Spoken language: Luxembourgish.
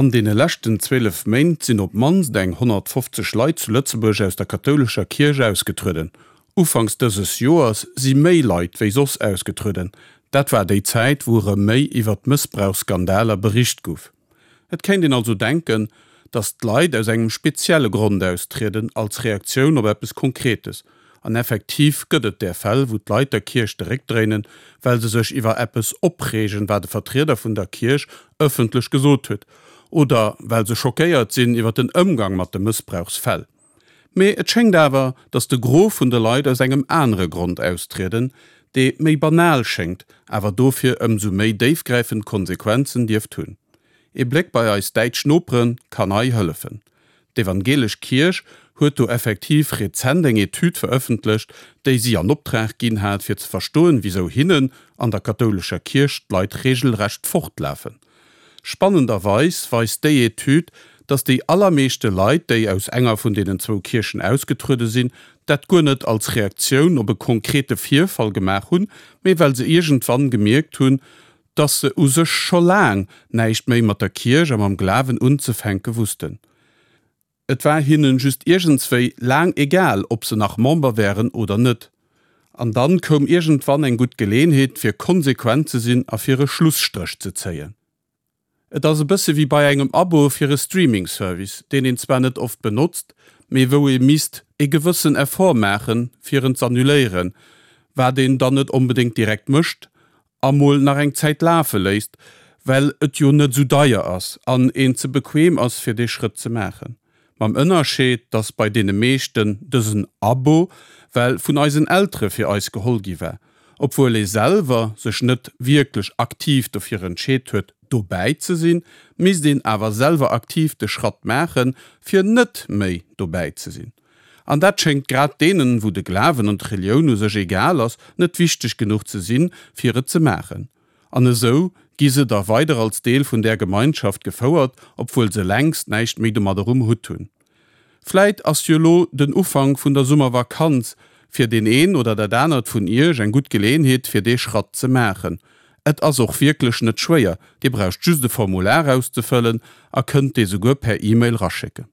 An deene leschten 12 Méint sinn op d'mannst eng 150 Leit zu Lëtzebuerg aus der kathoulescher Kierch ausgetrueden. Ufanks dëses Joers si méi Leit wéi soss ausgetrueden. Dat war déi Zäit, wou erëm méi iwwer d'Mëssbrauchsskandaler bericht gouf. Et kéint een also denken, datt d'Leit aus engem spezielle Grond austrieden, als Reaktioun op eppes Konkretes. An effektiv gëtt et där Fäll, wou d'Leit der Kierch de Réck dréinen, well se sech iwwer eppes opreegen, wat e Vertrieder vun der Kierch ëffentlech gesot huet, oder well se schockéiert sinn iwwer den Ëmgang mat de Mëssbrauchsfäll. Mee et schéngt awer, datt de Gros vun de Leit aus engem anere Grond austrieden, dee méi banal schéngt, awer dofir ëmsou méi déifgräifend Konsequenzen dierft hunn. Ee Bléck bei eis däitsch Nopere kann hei hëllefen. D'Evangelesch Kierch huet do effektiv rezent eng Etüd verëffentlecht, déi si an Optrag ginn hat, fir ze verstoen, wisou hinnen an der kathoulescher Kierch d'Leit regelrecht fortlafen. Spannenderweis weist déi Etüd, datt déi allermeeschte Leit, déi aus enger vun deenen zwou Kierchen ausgetruede sinn, dat guer net als Reaktioun op e konkrete Virfall gemaach hunn, mee well se iergendwann gemierkt hunn, dass se u sech scho laang näischt méi mat der Kierch a mam Glawen unzefänke wussten. Et war hinnen just iergendswéi laang egal, ob se nach Member wären oder net. An dann koum iergendwann eng gutt Geleenheet, fir konsequent ze sinn a fir e Schlusstréch ze zéien. Et ass e bësse wéi bei engem Abo fir e Streaming-Service, deen een zwar net oft benotzt, mee wou ee misst e gewëssen Effort maachen, fir en z'annuléieren, wat een dann net onbedéngt direkt mécht a mol nach eng Zäit lafe léisst, well et jo net esou deier ass an een ze bequem ass fir dee Schrëtt ze maachen. Mam Ënnerscheed, dass bei deene meeschten dësen Abo well vun eisen Eltere fir eis geholl gi war, obwuel ee selwer sech net wierklech aktiv dofir entscheet huet dobäi ze sinn, misst een awer selwer aktiv de Schratt maachen, fir net méi dobäi ze sinn. An dat schéngt grad deenen, wou de Glawen an d'Relioun u sech egal ass, net wichteg genuch ze sinn, fir et ze maachen. An esou gi se da weider als Deel vun där Gemeinschaft gefouert, obwuel se längst näischt méi domadder um Hutt hunn. Vläit ass jo lo den Ufank vun der Summervakanz fir deen een oder dat anert vun iech eng gutt Geleeënheet fir dee Schratt ze maachen. Et ass och wierklech net schwéier, dir braucht just e Formular auszefëllen a kënnt dee souguer per E-Mail raschécken.